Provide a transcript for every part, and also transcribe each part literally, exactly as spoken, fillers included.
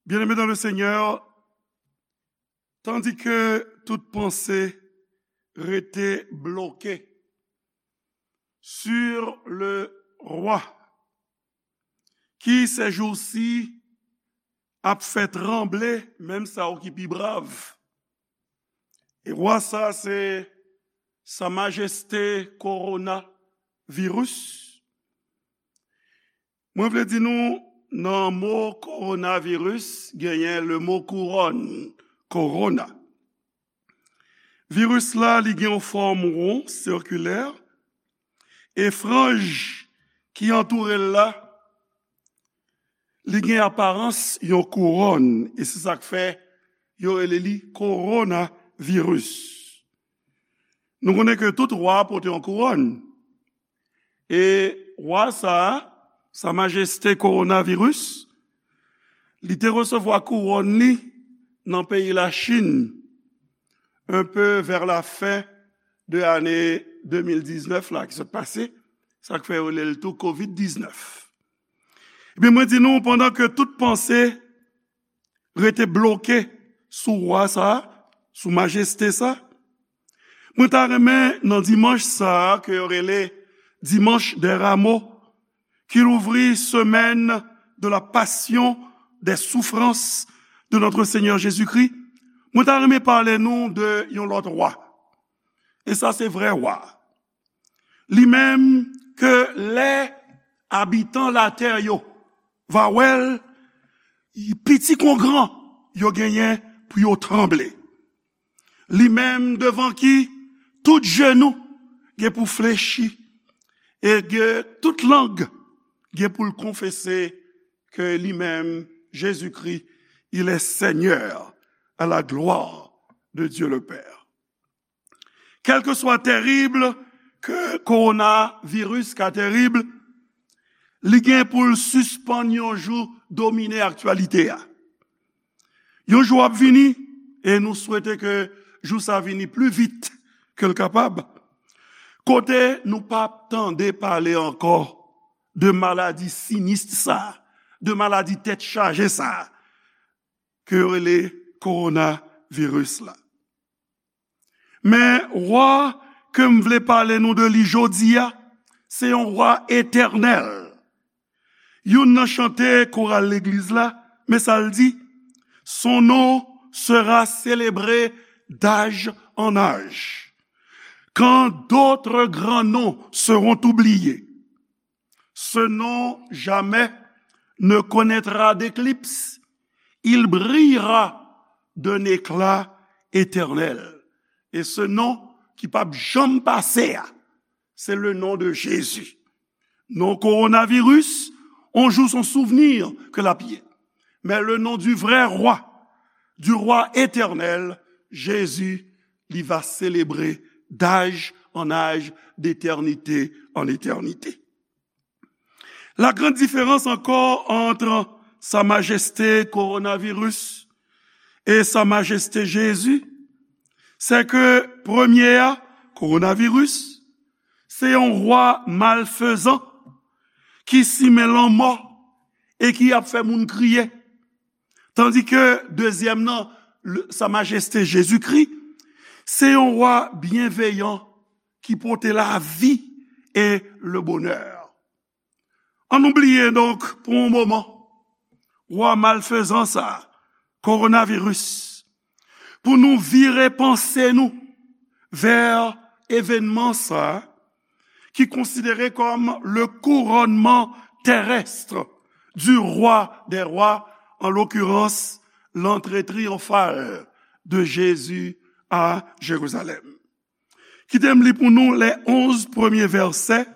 Bien-aimés dans le Seigneur, tandis que toute pensée restait bloquée sur le roi, ki ces jours-ci ap fè tranble menm sa yo ki pi brav. E rwa sa, se Sa Majeste Kowonaviris. Mwen vle di nou, nan mo kowonaviris, genyen le mo kouwòn, kowona. Viris la, li gen yon fòm won, sikilè, e franj ki antoure l la, li gen aparans yon kouwòn, e se sa k fè yo rele li kowonaviris. Nou konnen ke tout wa pote yon kouwòn. E wa sa a, Sa Majeste Kowonaviris, li te resevwa kouwòn li nan peyi Lachin, un peu vers la fin de ane de mil diznèf la ki sot pase, sa k fè yo rele l tou kovid diznèf. Ebyen, mwen di nou, pandan ke tout panse rete bloke sou wa sa a, sou majeste sa, mwen ta renmen nan dimanch sa a, ke yo rele Dimanche des Rameaux, ki louvri semaine de la passion, des souffrances de notre Seigneur Jésus-Christ, mwen ta renmen pale nou de yon lòt wa. E sa se vrè wa. Li menm ke lè abitan latè yo va wè l, piti kon gran, yo genyen pou yo tranble. Li menm devan ki tout jenou gen pou flechi, e ke tout lang gen pou l konfese ke li menm, Jésus-Christ, il est Seigneur, à la gloire de Dieu le Père. Kèlkeswa tèrib ke kowonaviris ka tèrib, li gen pou l sispann yon jou domine aktyalite a. Yon jou ap vini, e nou swete ke jou sa vini pli vit ke l kapab, kote nou p ap tande pale ankò de maladi sinis sa, de maladi tèt chaje sa, ke yo rele kowonaviris la. Men wa ke m vle pale nou de li jodi a, se yon wa etènèl. Youn nan chante koral legliz la, men sa l di, Son nom sera célébré d'âge en âge, quand d'autres grands noms seront oubliés. Ce nom jamais ne connaîtra d'éclipse. Il brillera d'un éclat éternel. E se non ki p ap janm pase a, se le nom de Jésus. Non kowonaviris, on jou son souvenir ke l ap ye. Men le nom du vrai roi, du roi éternel, Jésus, li va célébrer d'âge en âge, d'éternité en éternité. La grande différence encore entre Sa Majeste Kowonaviris e Sa Majeste Jezi, se ke premye a, kowonaviris, se yon wa malfezan ki simen lanmò e ki ap fè moun kriye. Tandi ke dezyèm nan, le- Sa Majeste Jezikri, se yon wa byenveyan ki pote lavi e le bonè. Ann nou bliye donk pou yon moman wa malfezan sa, kowonaviris, pou nou vire panse nou vè evènman sa ki konsidere kòm le couronnement terrestre du roi des rois, en l'occurrence l'entrée triomphale de Jésus à Jérusalem. Kite m li pou nou les onze premiers versets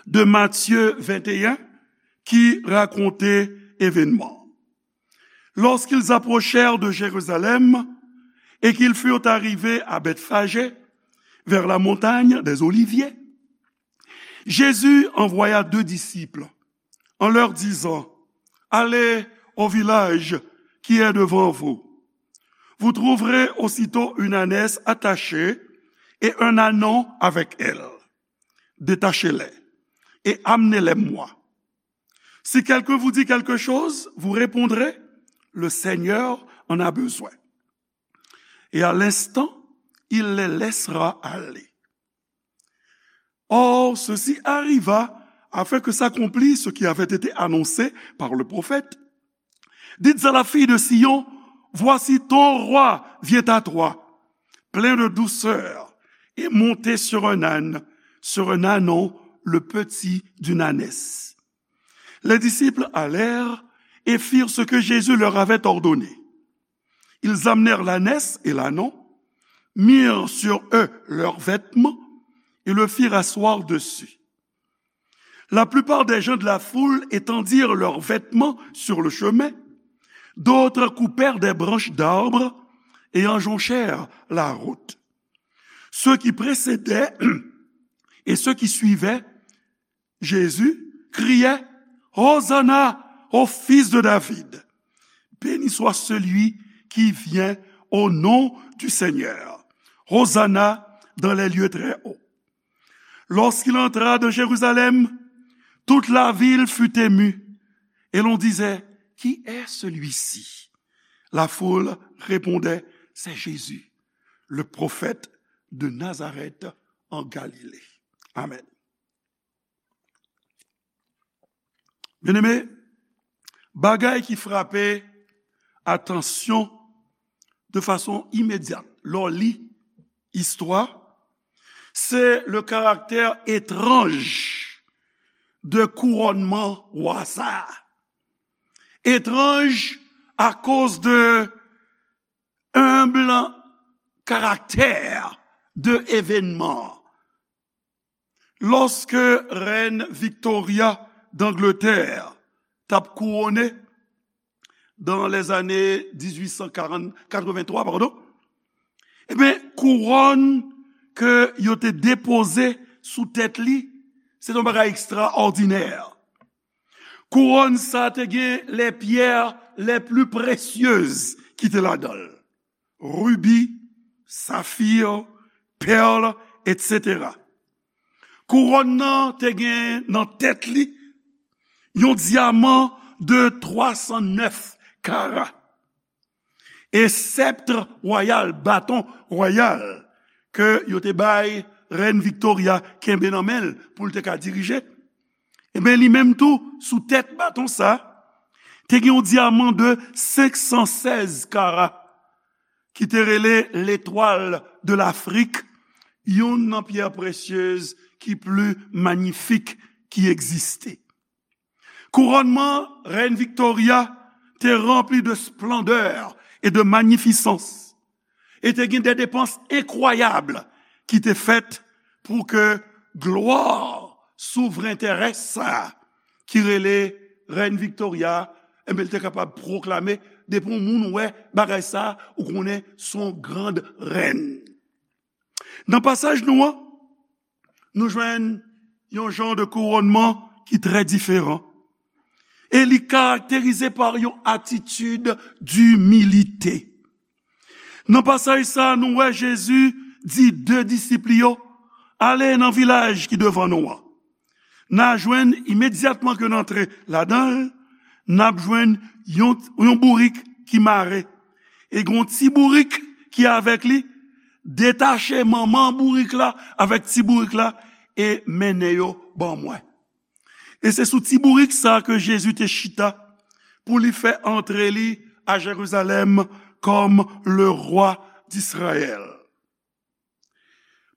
de Matthieu vingt et un ki rakonte evènman. Lorsqu'ils approchèrent de Jérusalem et qu'ils furent arrivés à Bethphagée, vers la montagne des Oliviers, Jésus envoya deux disciples en leur disant, Allez au village qui est devant vous. Vous trouverez aussitôt une ânesse attachée et un ânon avec elle. Détachez-les et amenez-les moi. Si quelqu'un vous dit quelque chose, vous répondrez, Le Seigneur en a besoin. Et à l'instant, il les laissera aller. Or, ceci arriva afin que s'accomplisse ce qui avait été annoncé par le prophète. Dites à la fille de Sion, voici ton roi vient à toi, plein de douceur, et monté sur un âne, sur un ânon, le petit d'une ânesse. Les disciples allèrent et firent ce que Jésus leur avait ordonné. Ils amenèrent l'ânesse et l'ânon, mirent sur eux leurs vêtements et le firent asseoir dessus. La plupart des gens de la foule étendirent leurs vêtements sur le chemin, d'autres coupèrent des branches d'arbres et en jonchèrent la route. Ceux qui précédaient et ceux qui suivaient Jésus criaient, Hosanna au fils de David. Béni soit celui qui vient au nom du Seigneur. Hosanna dans les lieux très hauts. Lorsqu'il entra dans Jérusalem, toute la ville fut émue, et l'on disait, qui est celui-ci ? La foule répondait, c'est Jésus, le prophète de Nazareth en Galilée. Amen. Byeneme, bagay ki frape atansyon de fason imedyat lè w li istwa, se le karaktè etranj de kourònman wa sa a. Etranj akoz de enb karaktè de evènman an. Lòske rèn Victoria d'Angleterre t ap kouwone dans les années dix-huit cent quarante, quatre-vingt-trois, pardon, ebyen, kouwòn ke yo te depoze sou tèt li, se te yon bagay ekstraòdinè. Kouwòn sa te gen les pierres les plus précieuses ki te ladan l. Ribi, safir, pèl, etsetera. Kouwòn nan te gen nan tèt li yon dyaman de twa san nèf kara. E sèpt wayal, baton wayal, ke yo te bay rèn Victoria kenbe nan men l pou l te ka dirije, ebyen, li menm tou, sou tèt baton sa, te gen yon dyaman de senk san sèz kara, ki te rele Letwal de Lafrik, youn nan pyè presyez ki pli manyifik ki egziste. Kourònman rèn Victoria te ranpli de splandè e de manyifisans, e te gen de depans enkwayab ki te fèt pou ke glwa souvren terès sa a, ki rele rèn Victoria, enben, l te kapab pwoklame, depi yon moun wè bagay sa a, ou konnen se yon grand rèn. Nan pasaj nou an, nou jwenn yon jan de kourònman ki trè diferan. E li karakterize pa yon atitid dimilite. Nan pasaj sa a, nou wè Jezi di de disip li yo, ale nan vilaj ki devan nou an. N a jwenn imedyatman ke n antre ladan l, n ap jwenn yon, yon bourik ki mare. E gen yon ti bourik ki avèk li, detache manman bourik la avèk ti bourik la e mennen yo ban mwen. E se sou ti bourik sa ke Jezi te chita pou li fè antre li a Jerizalèm kòm le rwa d'Izrayèl.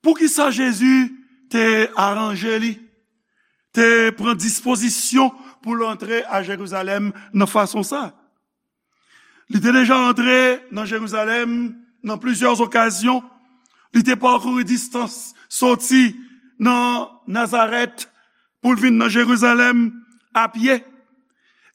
Poukisa Jezi te aranje li, te pran dispozisyon pou l antre a Jerizalèm nan fason sa? Li te deja antre nan Jerizalèm nan plizyè okazyon. Li te pakouri distans soti nan Nazarèt pou l vin nan Jerizalèm a pye.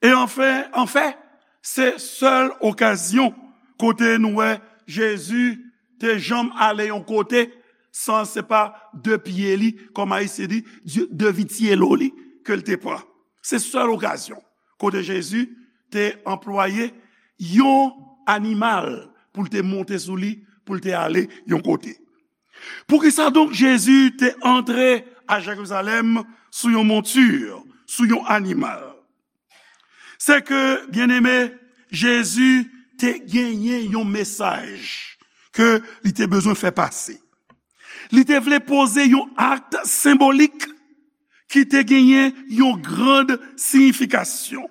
E anfen, anfèt, se sèl okazyon kote nou wè Jezi te janm ale yon kote san se pa de pye li, kòm Ayisyen di, de, de vityelo li ke l te pran. Se sèl okazyon kote Jezi te anplwaye yon animal pou l te monte sou li, pou l te ale yon kote. Poukisa donk Jezi te antre a Jerizalèm sou yon monti, sou yon animal? Se ke, byeneme, Jezi te genyen yon mesaj ke li te bezwen fè pase. Li te vle poze yon akt senbolik ki te genyen yon grand siyifikasyon,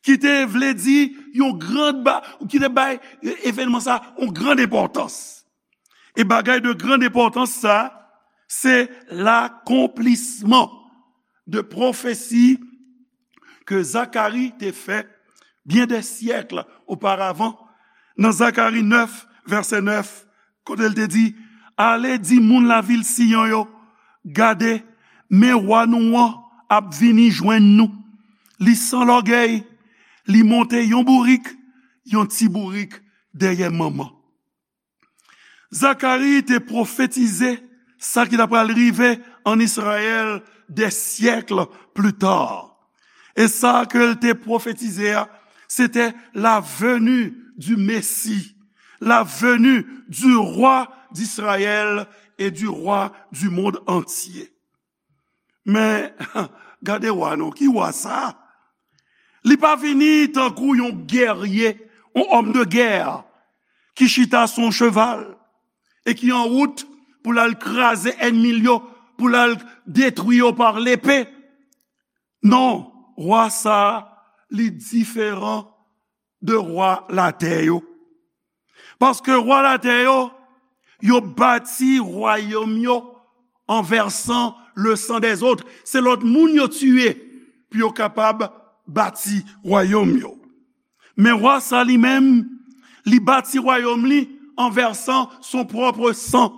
ki te vle di yon grand ba, ki te bay evènman sa yon grand enpòtans. E bagay de grand enpòtans sa, se lakonplisman de pwofesi ke Zakari te fè byen dè syèk oparavan, nan Zakari nèf, vèsè nèf, kote l te di, "Ale di moun lavil Siyon yo, gade, men wa nou an ap vini jwenn nou. Li san lògèy, li monte yon bourik, yon ti bourik dèyè manman." Zakari te pwofetize sa ki ta pral rive ann Izrayèl dè syèk pli ta. E sa ke l te pwofetize a, se te la venue du Messie, la venue du roi d'Israël et du roi du monde entier. Men, gade wa non, ki wa sa? Li pa vini tankou yon gèrye, yon òm de gè, ki chita sou yon cheval e ki an wout pou l al kraze ènmi l yo, pou l al detwi yo pa lepe. Non, wa sa a, li diferan de wa latè yo. Paske wa latè yo, yo bati wayòm yo an vèsan le san dèzòt. Se lòt moun yo tiye pou yo kapab bati wayòm yo. Men wa sa li menm, li bati wayòm li an vèsan son pwòp san.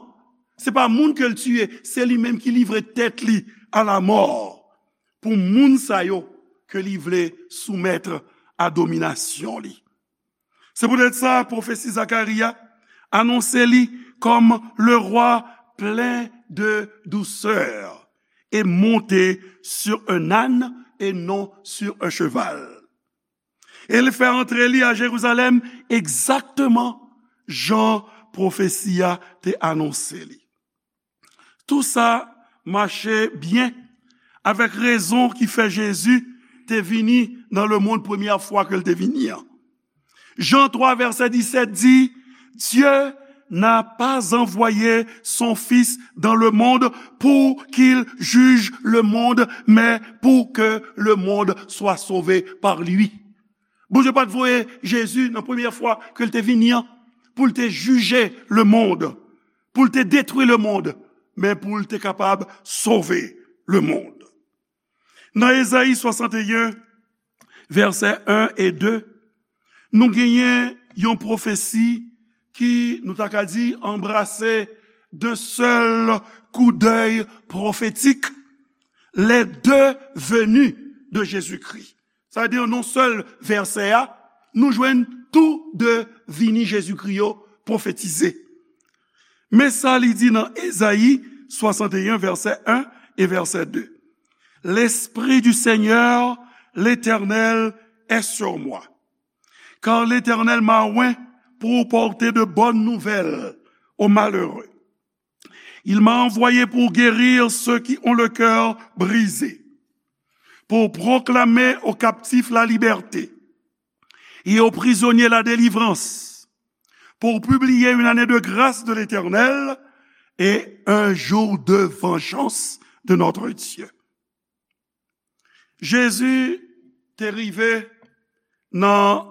Se pa moun ke l tiye, se li menm ki livre tèt li a lamò pou moun sa yo ke li vle soumèt a dominasyon li. Se poutèt sa, pwofesi Zakari a anonse li kòm le roi plein de douceur et monté sur un âne et non sur un cheval. E li fè antre li a Jerizalèm egzakteman jan pwofesi a te anonse li. Tou sa mache byen avèk rezon ki fè Jezi te vini nan lemonn premyè fwa ke l te vini an. Jan twa, vèsè disèt di, Dieu n'a pas envoyé son Fils dans le monde pour qu'il juge le monde, mais pour que le monde soit sauvé par lui. Bondye pa t voye Jezi nan premyè fwa ke l te vini an pou l te jije lemonn, pou l te detwi lemonn, men pou l te kapab sove lemonn. Nan Ezayi swasanteyen, vèsè en e de, nou genyen yon pwofesi ki, nou ta ka di, anbrase d'un seul coup d'œil prophétique les deux venues de Jésus-Christ. Sa vle di, nan sèl vèsè a, nou jwenn tou de vini Jezikri yo pwofetize. Men sa li di nan Ezayi swasanteyen, vèsè en e vèsè de. L'Esprit du Seigneur, l'Éternel, est sur moi, car l'Éternel m'a oint pour porter de bonnes nouvelles aux malheureux. Il m'a envoyé pour guérir ceux qui ont le cœur brisé, pour proclamer aux captifs la liberté et aux prisonniers la délivrance, pour publier une année de grâce de l'Éternel et un jour de vengeance de notre Dieu. Jezi te rive nan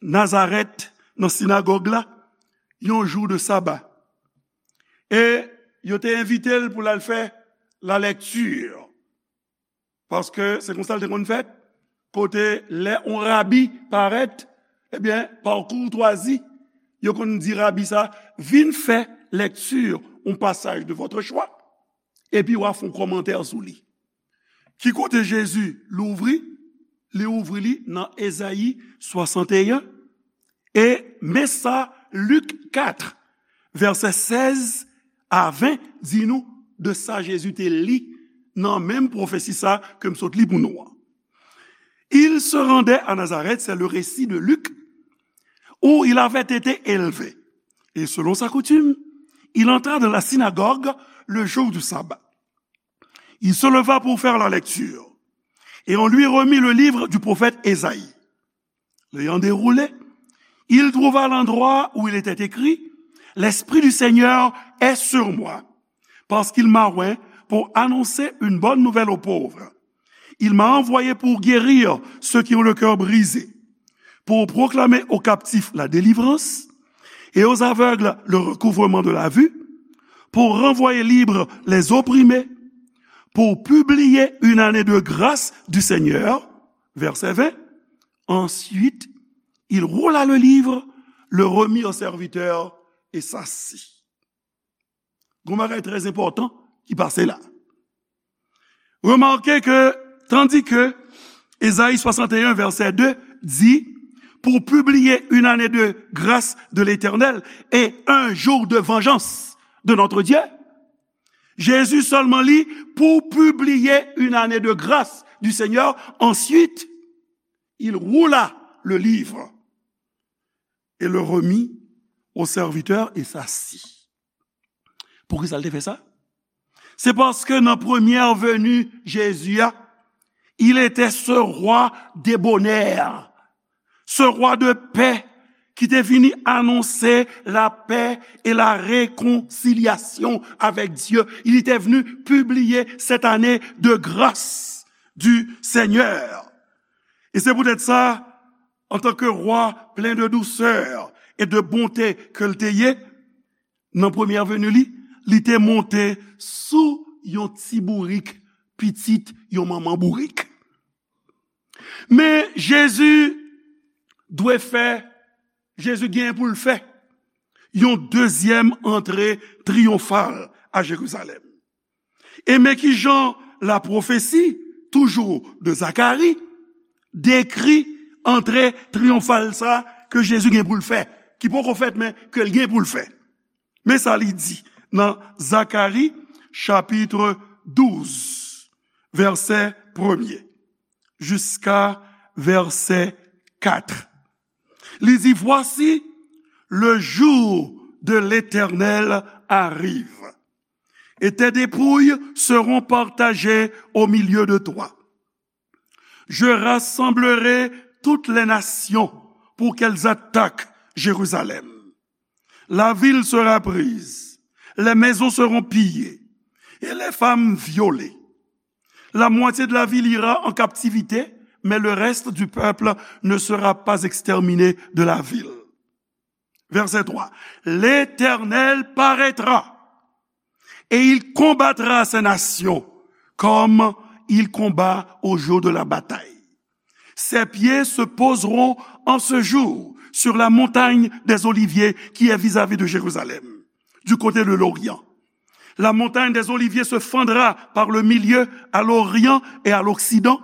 Nazarèt, nan sinagòg la, yon jou de saba. E yo te envite l pou l al fè lalèkti. Paske se konsa l te konn fèt, kote lè yon rabi parèt, ebyen, pa koutwazi, yo konn di rabi sa, vin fè lèkti yon pasaj de votre choix, epi w a fè yon kòmantè sou li. Ki kote Jezi louvri? Li ouvri li nan Ezayi swasanteyen. E men sa Lik kat, vèsè sèz a ven di nou de sa Jezi te li nan menm pwofesi sa ke m sot li pou nou an. Il se rendait à Nazareth, c'est le récit de Luc, où il avait été élevé. Et selon sa coutume, il entra dans la synagogue le jour du sabbat. Il se leva pour faire la lecture, et on lui remit le livre du prophète Ésaïe. L'ayant déroulé, il trouva l'endroit où il était écrit, L'Esprit du Seigneur est sur moi, parce qu'il m'a oint pour annoncer une bonne nouvelle aux pauvres. Il m'a envoyé pour guérir ceux qui ont le cœur brisé, pour proclamer aux captifs la délivrance et aux aveugles le recouvrement de la vue, pour renvoyer libres les opprimés, pour publier une année de grâce du Seigneur. Verset vingt. Ensuite, il roula le livre, le remit au serviteur et s'assit. Gon bagay trè enpòtan ki pase la. Remarquez que, tandis que Ésaïe soixante et un, verset deux dit, pour publier une année de grâce de l'Éternel et un jour de vengeance de notre Dieu, Jésus seulement lit pour publier une année de grâce du Seigneur. Ensuite, il roula le livre et le remit au serviteur et s'assit. Poukisa l te fè sa? Se paske nan premyè veni Jezi a, il était ce roi débonnaire, ce roi de paix ki te vini anonse lapè e la rekonsilyasyon avèk Dye. Il était venu publier cette année de grâce du Seigneur. E se poutèt sa, antanke rwa plen de dousè e de bonte ke l te ye, nan premyè veni li, li te monte sou yon ti bourik, pitit yon manman bourik. Men Jezi dwe fè, Jezi gen pou l fè yon dezyèm antre triyonfal a Jerizalèm. E men kijan lapwofesi, toujou de Zakari, dekri antre triyonfal sa ke Jezi gen pou l fè, ki poko fèt, men ke l gen pou l fè. Men sa li di nan Zakari, chapit douz, vèsè premye, jiska vèsè kat. Li di, Voici, le jour de l'Éternel arrive, et tes dépouilles seront partagées au milieu de toi. Je rassemblerai toutes les nations pour qu'elles attaquent Jérusalem. La ville sera prise, les maisons seront pillées et les femmes violées. La moitié de la ville ira en captivité, mais le reste du peuple ne sera pas exterminé de la ville. Verset trois. L'Éternel paraîtra et il combattra ces nations comme il combat au jour de la bataille. Ses pieds se poseront en ce jour sur la montagne des Oliviers qui est vis-à-vis de Jérusalem, du côté de l'Orient. La montagne des Oliviers se fendra par le milieu à l'orient et à l'occident,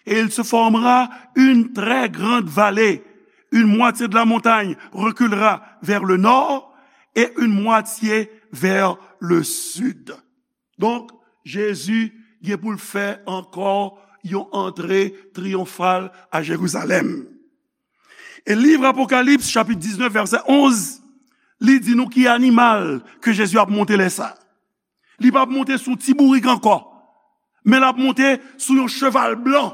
et il se formera une très grande vallée. Une moitié de la montagne reculera vers le nord et une moitié vers le sud. Donk, Jezi gen pou l fè ankò yon antre triyonfal a Jerizalèm. E liv Apokalips, chapit diznèf, vèsè onz, li di nou ki animal ke Jezi ap monte lè sa. Li p ap monte sou ti bourik ankò, men l ap monte sou yon cheval blan,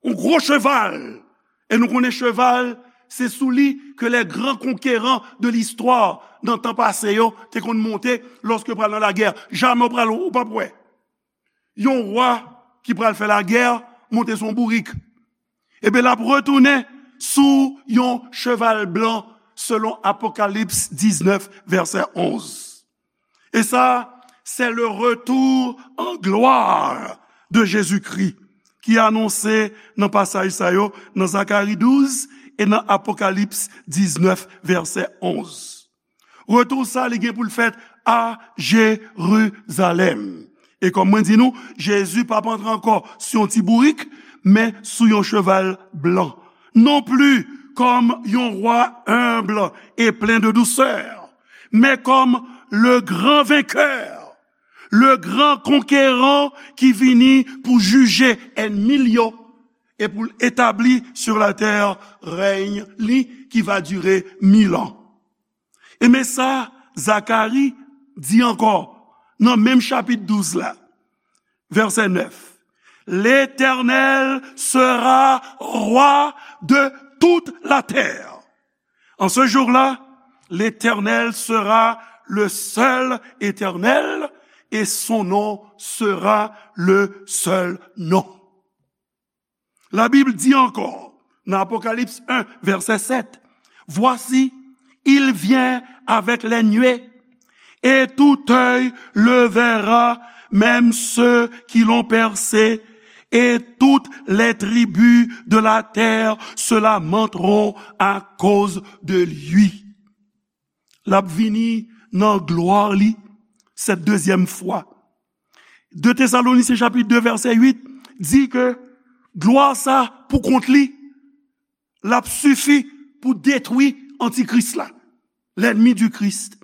yon gwo cheval. E nou konnen cheval, se sou li ke les grands conquérants de l'histoire nan tan pase yo te konn monte lòske pral nan lagè. Jamè w pral, ou p ap wè yon wa ki pral fè lagè monte sou yon bourik. Ebyen, l ap retounen sou yon cheval blan, selon Apokalips diznèf, vèsè onz. E sa, c'est le retour en gloire de Jésus-Christ ki anonse nan pasaj sa yo, nan Zakari douz e nan Apokalips diznèf, vèsè onz. Retou sa, li gen pou l fèt a Jerizalèm. E kòm mwen di nou, Jezi p ap antre ankò sou yon ti bourik, men sou yon cheval blan. Non plus comme yon roi humble et plein de douceur, mais comme le grand vainqueur, le grand conquérant ki vini pou jije ènmi l yo e pou l etabli sur la terre règne li qui va durer mille ans. E men sa Zakari di ankò nan menm chapit douz la, vèsè nèf. L'Éternel sera roi de toute la terre. En ce jour-là, l'Éternel sera le seul Éternel et son nom sera le seul nom. La Bible dit encore, dans Apocalypse un, verset sept, voici, il vient avec les nuées, et tout œil le verra, même ceux qui l'ont percé, et toutes les tribus de la terre se lamenteront à cause de lui. L ap vini nan glwa li, cette deuxième fois. De Thessaloniciens chapitre deux, verset huit, di ke glwa sa pou kont li, l ap sifi pou detwi antikris la, l'ennemi du Christ.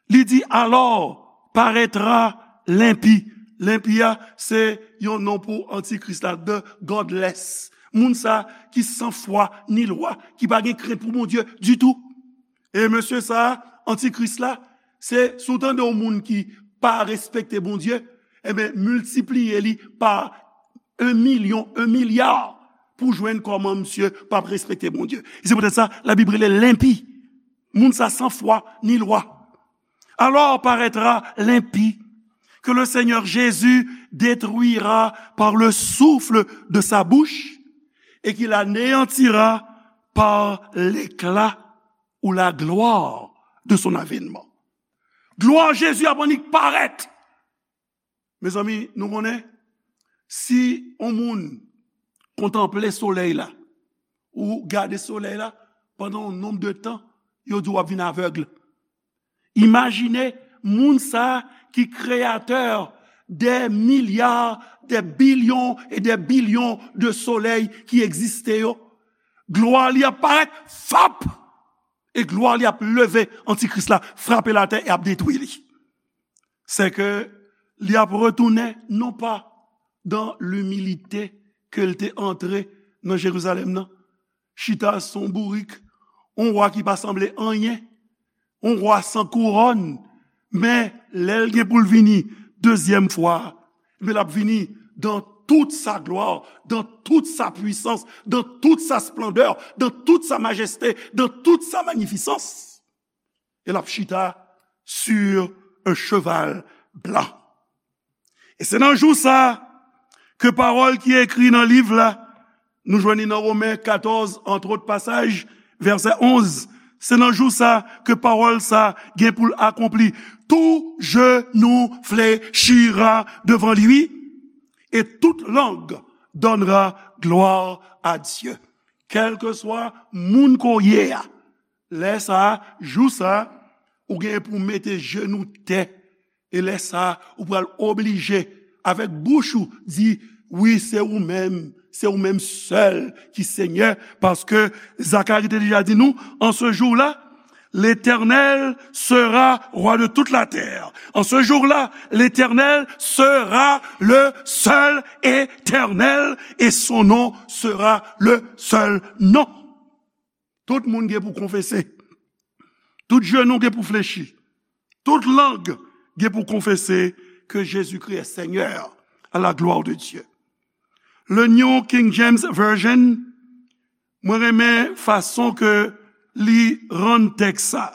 Li di, alors paraîtra l'impie. L'impie a, se yon non pou antikris la, the godless. Moun sa ki san fwa ni lwa, ki pa gen krent pou Bondye ditou. E mesye sa, antikris la, se, si w tande yon moun ki pa respekte Bondye, enben, miltipliye li pa un million, un milliard pou jwenn kòman misye p ap respekte Bondye. E se poutèt sa, Labib rele l enpi. Moun sa san fwa ni lwa. Alors paraîtra l'impie, que le Seigneur Jésus détruira par le souffle de sa bouche et qu'il anéantira par l'éclat ou la gloire de son avènement. Glwa Jezi ap annik parèt. Mezanmi, nou konnen, si yon moun kontanple solèy la, ou gade solèy la pandan yon nonb de tan, yo di w ap vin avèg. Imajine moun sa ki kreyatè dè milya, dè bilyon e dè bilyon de solèy ki egziste yo. Glwa li ap parèt, fap! E glwa li ap leve antikris la, frape l atè e ap detwi li. Sèke li ap retounen non pa dan limilite ke l te antre nan Jerizalèm nan, chita sou yon bourik, yon wa ki pa sanble anyen, yon wa san kouwòn, men lè l gen pou l vini dezyèm fwa, men l ap vini dans toute sa gloire, dans toute sa puissance, dans toute sa splendeur, dans toute sa majesté, dans toute sa magnificence. E l ap chita sur un cheval blanc. E se nan jou sa ke pawòl ki ekri nan liv la, nou jwenn li nan Women katòz, entre autres passages, vèsè onz. Se nan jou sa ke pawòl sa gen pou l akonpli. Tout genou fléchira devant lui, et toute langue donnera gloire à Dieu. Kèlkeswa moun ke w ye a, lè sa a, jou sa a, ou gen pou mete jenou tè. E lè sa a, ou pral oblije, avèk bouch ou, di, wi, se ou menm, se ou menm sèl ki Senyè, paske Zakari te deja di nou, en ce jour-là, l'Éternel sera roi de toute la terre. En ce jour-là, l'Éternel sera le seul éternel et son nom sera le seul nom. Tout moun gen pou konfese. Tout jenou gen pou flechi. Tout lang gen pou konfese ke Jezikri est Seigneur, à la gloire de Dieu. Le New King James Version, mwen renmen fason ke li rann tèks sa.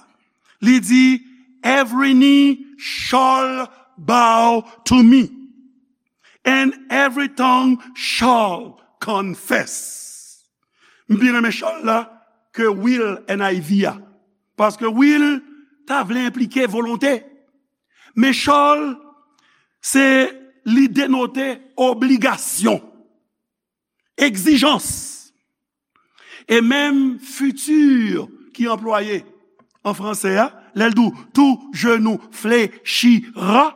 Li di, every knee shall bow to me, and every tongue shall confess. M pi renmen shall la ke will, N I V a. Paske will ta vle enplike volonte. Men shall, se li denote obligasyon, egzijans. E menm futur ki anplwaye an franse a, lè l di w, tout genou fléchira,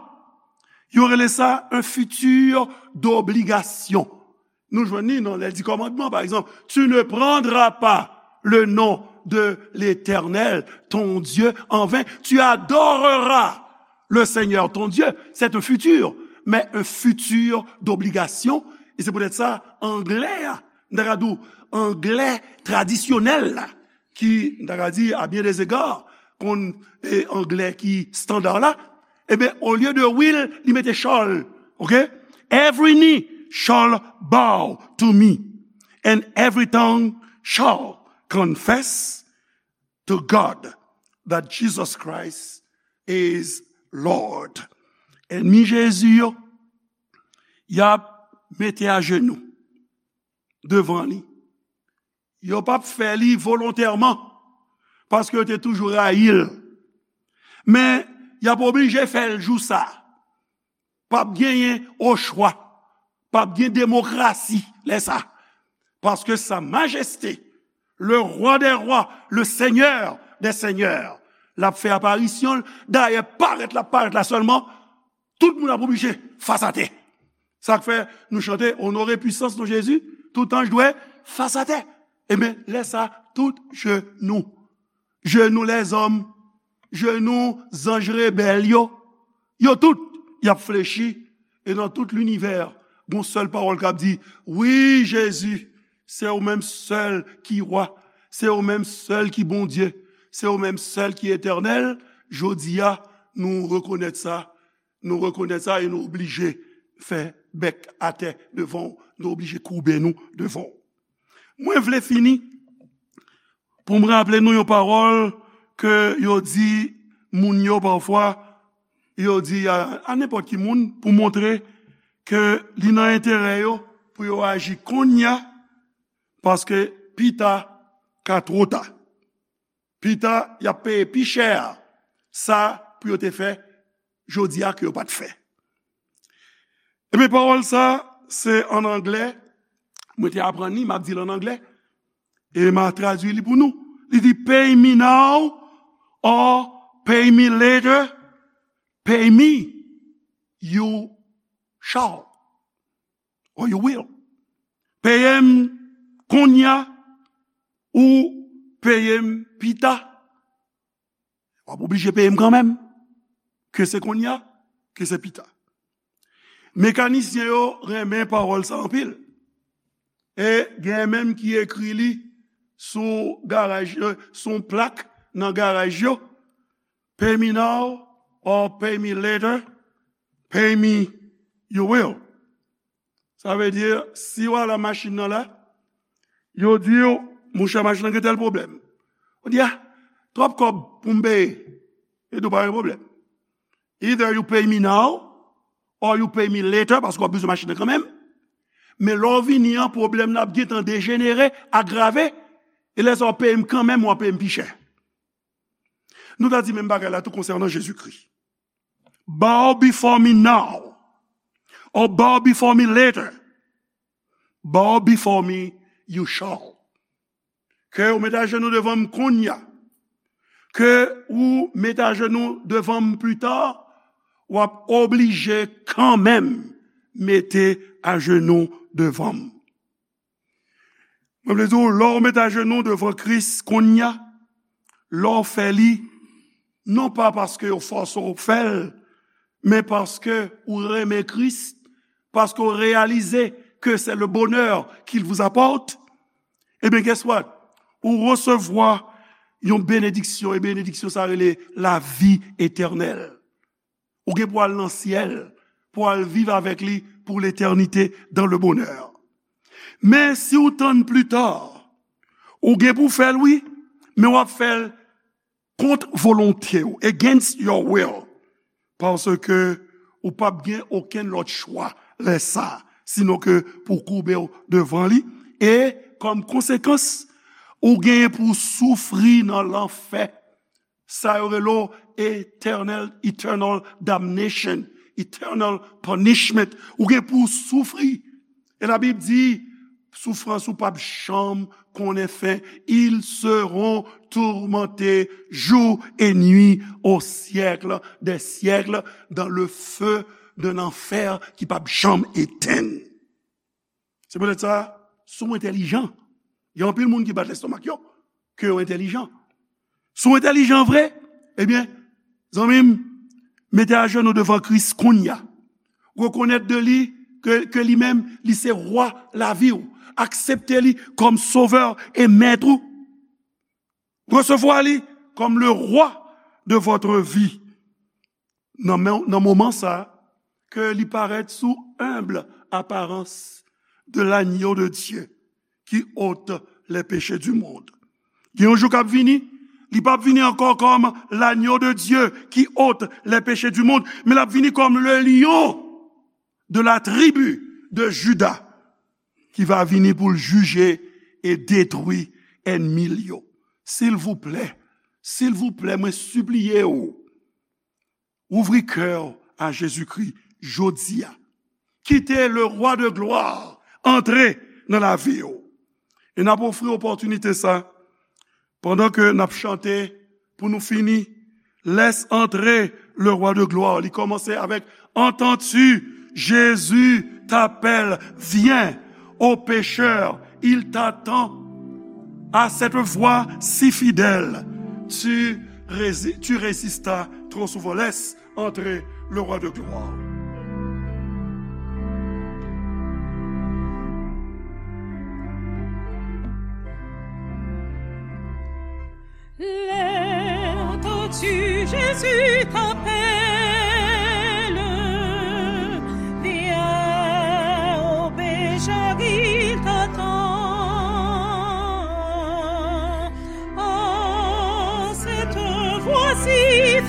yo rele sa un futur d'obligation. Nou jwenn li nan lè di kòmandman, pa egzanp, tu ne prendras pas le nom de l'Éternel, ton Dieu, en vain, tu adoreras le Seigneur, ton Dieu. C'est un futur, mais un futur d'obligation. E se poutèt sa, anglè a, m ta ka di w, anglè tradisyonèl la, ki, m ta ka di, à bien des égards, konn, e, anglè ki standard la, ebyen, olye de will, li mete shall, ok? Every knee shall bow to me, and every tongue shall confess to God that Jesus Christ is Lord. Ènmi Jezi yo, y ap mete ajenou devan li. Yo p ap fè li volontèman, paske yo te toujou rayi l. Men, y ap oblije fè l jou sa a. P ap genyen ochwa. P ap gen demokrasi lè sa a. Paske Sa Majeste, le Roi des rois, le Seigneur des seigneurs, l ap fè aparisyon l. Dayè, parèt l ap parèt la sèlman, tout moun ap oblije fas atè. Sa k fè nou chante, Onore pwisans non Jezi, tout anj dwe fas atè. Ebyen, lè sa, tout jenou, jenou lèzòm, jenou zanj rebèl yo, yo tout, y ap flechi, e nan tout linivè, gon sèl pawòl k ap di, wi, Jezi, se ou menm sèl ki Wa, se ou menm sèl ki Bondye, se ou menm sèl ki Etènèl. Jodi a, nou rekonèt sa, nou rekonèt sa e nou oblije fè bèk atè devan w, nou oblije koube nou devan w. Mwen vle fini pou m raple nou yon pawòl ke yo di moun yo pafwa, yo di a, a nenpòt ki moun pou montre ke li nan enterè yo pou yo aji kounye a, paske pita ka twò ta. Pita, y ap peye pi chè sa pou yo te fè jodi a ke yo pa t fè. Ebyen, pawòl sa, se ann anglè. Mwen te aprann li, m ap di l ann anglè. E m a tradui li pou nou. Li di, pay me now or pay me later. Pay me, you shall, or you will. Peye m kounye a ou peye m pita. W ap oblije peye m kanmenm. Ke se kounye a, ke se pita. Mekanisyen yo renmen pawòl sa anpil. E gen menm ki ekri li sou garaj, euh, sou yon plak nan garaj yo. Pay me now or pay me later. Pay me, you will. Sa vle di, si w al nan machin nan la, yo di w, monchè, machin nan gen tèl pwoblèm. Ou di, a, twòp kòb pou m peye. Yo di w pa gen pwoblèm. Either you pay me now or you pay me later, paske w ap bezwen machin nan kanmenm. Men lè w vini an, pwoblèm nan ap gentan dejenere, agrave, e lè sa w ap peye m kanmenm, w ap peye m pi chè. Nou ta di menm bagay la tou konsènan Jezikri. Bow before me now, or bow before me later. Bow before me, you shall. Ke ou mete ajenou devan m kounye a. Ke ou mete ajenou devan m pita, w ap oblije kanmenm mete ajenou devan m. Mwen vle di w, lè w mete ajenou devan Kris kounye a, lè w fè li, non pa paske yo fòse w fè l, men paske ou renmen Kris, paske w reyalize ke c'est le bonheur qu'il vous apporte, ebyen, guess what? Ou resevwa yon benediksyon, e benediksyon sa rele lavi etènèl. Ou gen pou al nan syèl, pou al viv avèk li pour l'éternité dans le bonheur. Men si w tann pita, ou gen pou fè l, wi, men w ap fè l kont volonte w, against your will, paske ou p ap gen okenn lòt chwa lè sa, sinon ke pou koube w devan li, e kòm konsekans, ou gen pou soufri nan lanfè. Sa yo rele w eternal, eternal damnation, eternal punishment. Ou gen pou w soufri. E Labib di, soufrans ou p ap janm konnen fen. Ils seront tourmentés jour et nuit au siècle des siècles dans le feu d'un enfer ki p ap janm etenn. Se poutèt sa, si w entèlijan, gen anpil moun ki bat lestomak yo, ke yo entèlijan. Si w entèlijan vre, ebyen, zanmi m, mete ajenou devan Kris kounye a. Rekonèt de li ke, ke li menm, li se wa lavi w. Aksepte li kòm sovè e mèt ou. Resevwa li kòm le roi de votre vie. Nan men, nan moman sa, ke li parèt sou humble apparence de l'agneau de Dieu qui ôte les péchés du monde. Gen yon jou k ap vini, li p ap vini ankò kòm l'agneau de Dieu qui ôte les péchés du monde, men l ap vini kòm le lion de la tribu de Juda, ki va vini pou l jije e detwi ènmi l yo. Silvouplè, silvouplè, mwen sipliye w, ouvri kè w a Jezikri jodi a. Kite le roi de gloire antre nan lavi w. E n ap ofri opòtinite sa pandan ke n ap chante pou nou fini. Laisse entrer le roi de gloire. Li kòmanse avèk: Entends-tu, Jésus t'appelle, viens. Ô pécheur, il t'attend. À cette voix si fidèle, tu, rési- tu résistas trop souvent. Laisse entrer le roi de gloire. Entends-tu, Jésus t'appelle, viens, ô pécheur, il t'attend. Oh, cette voix si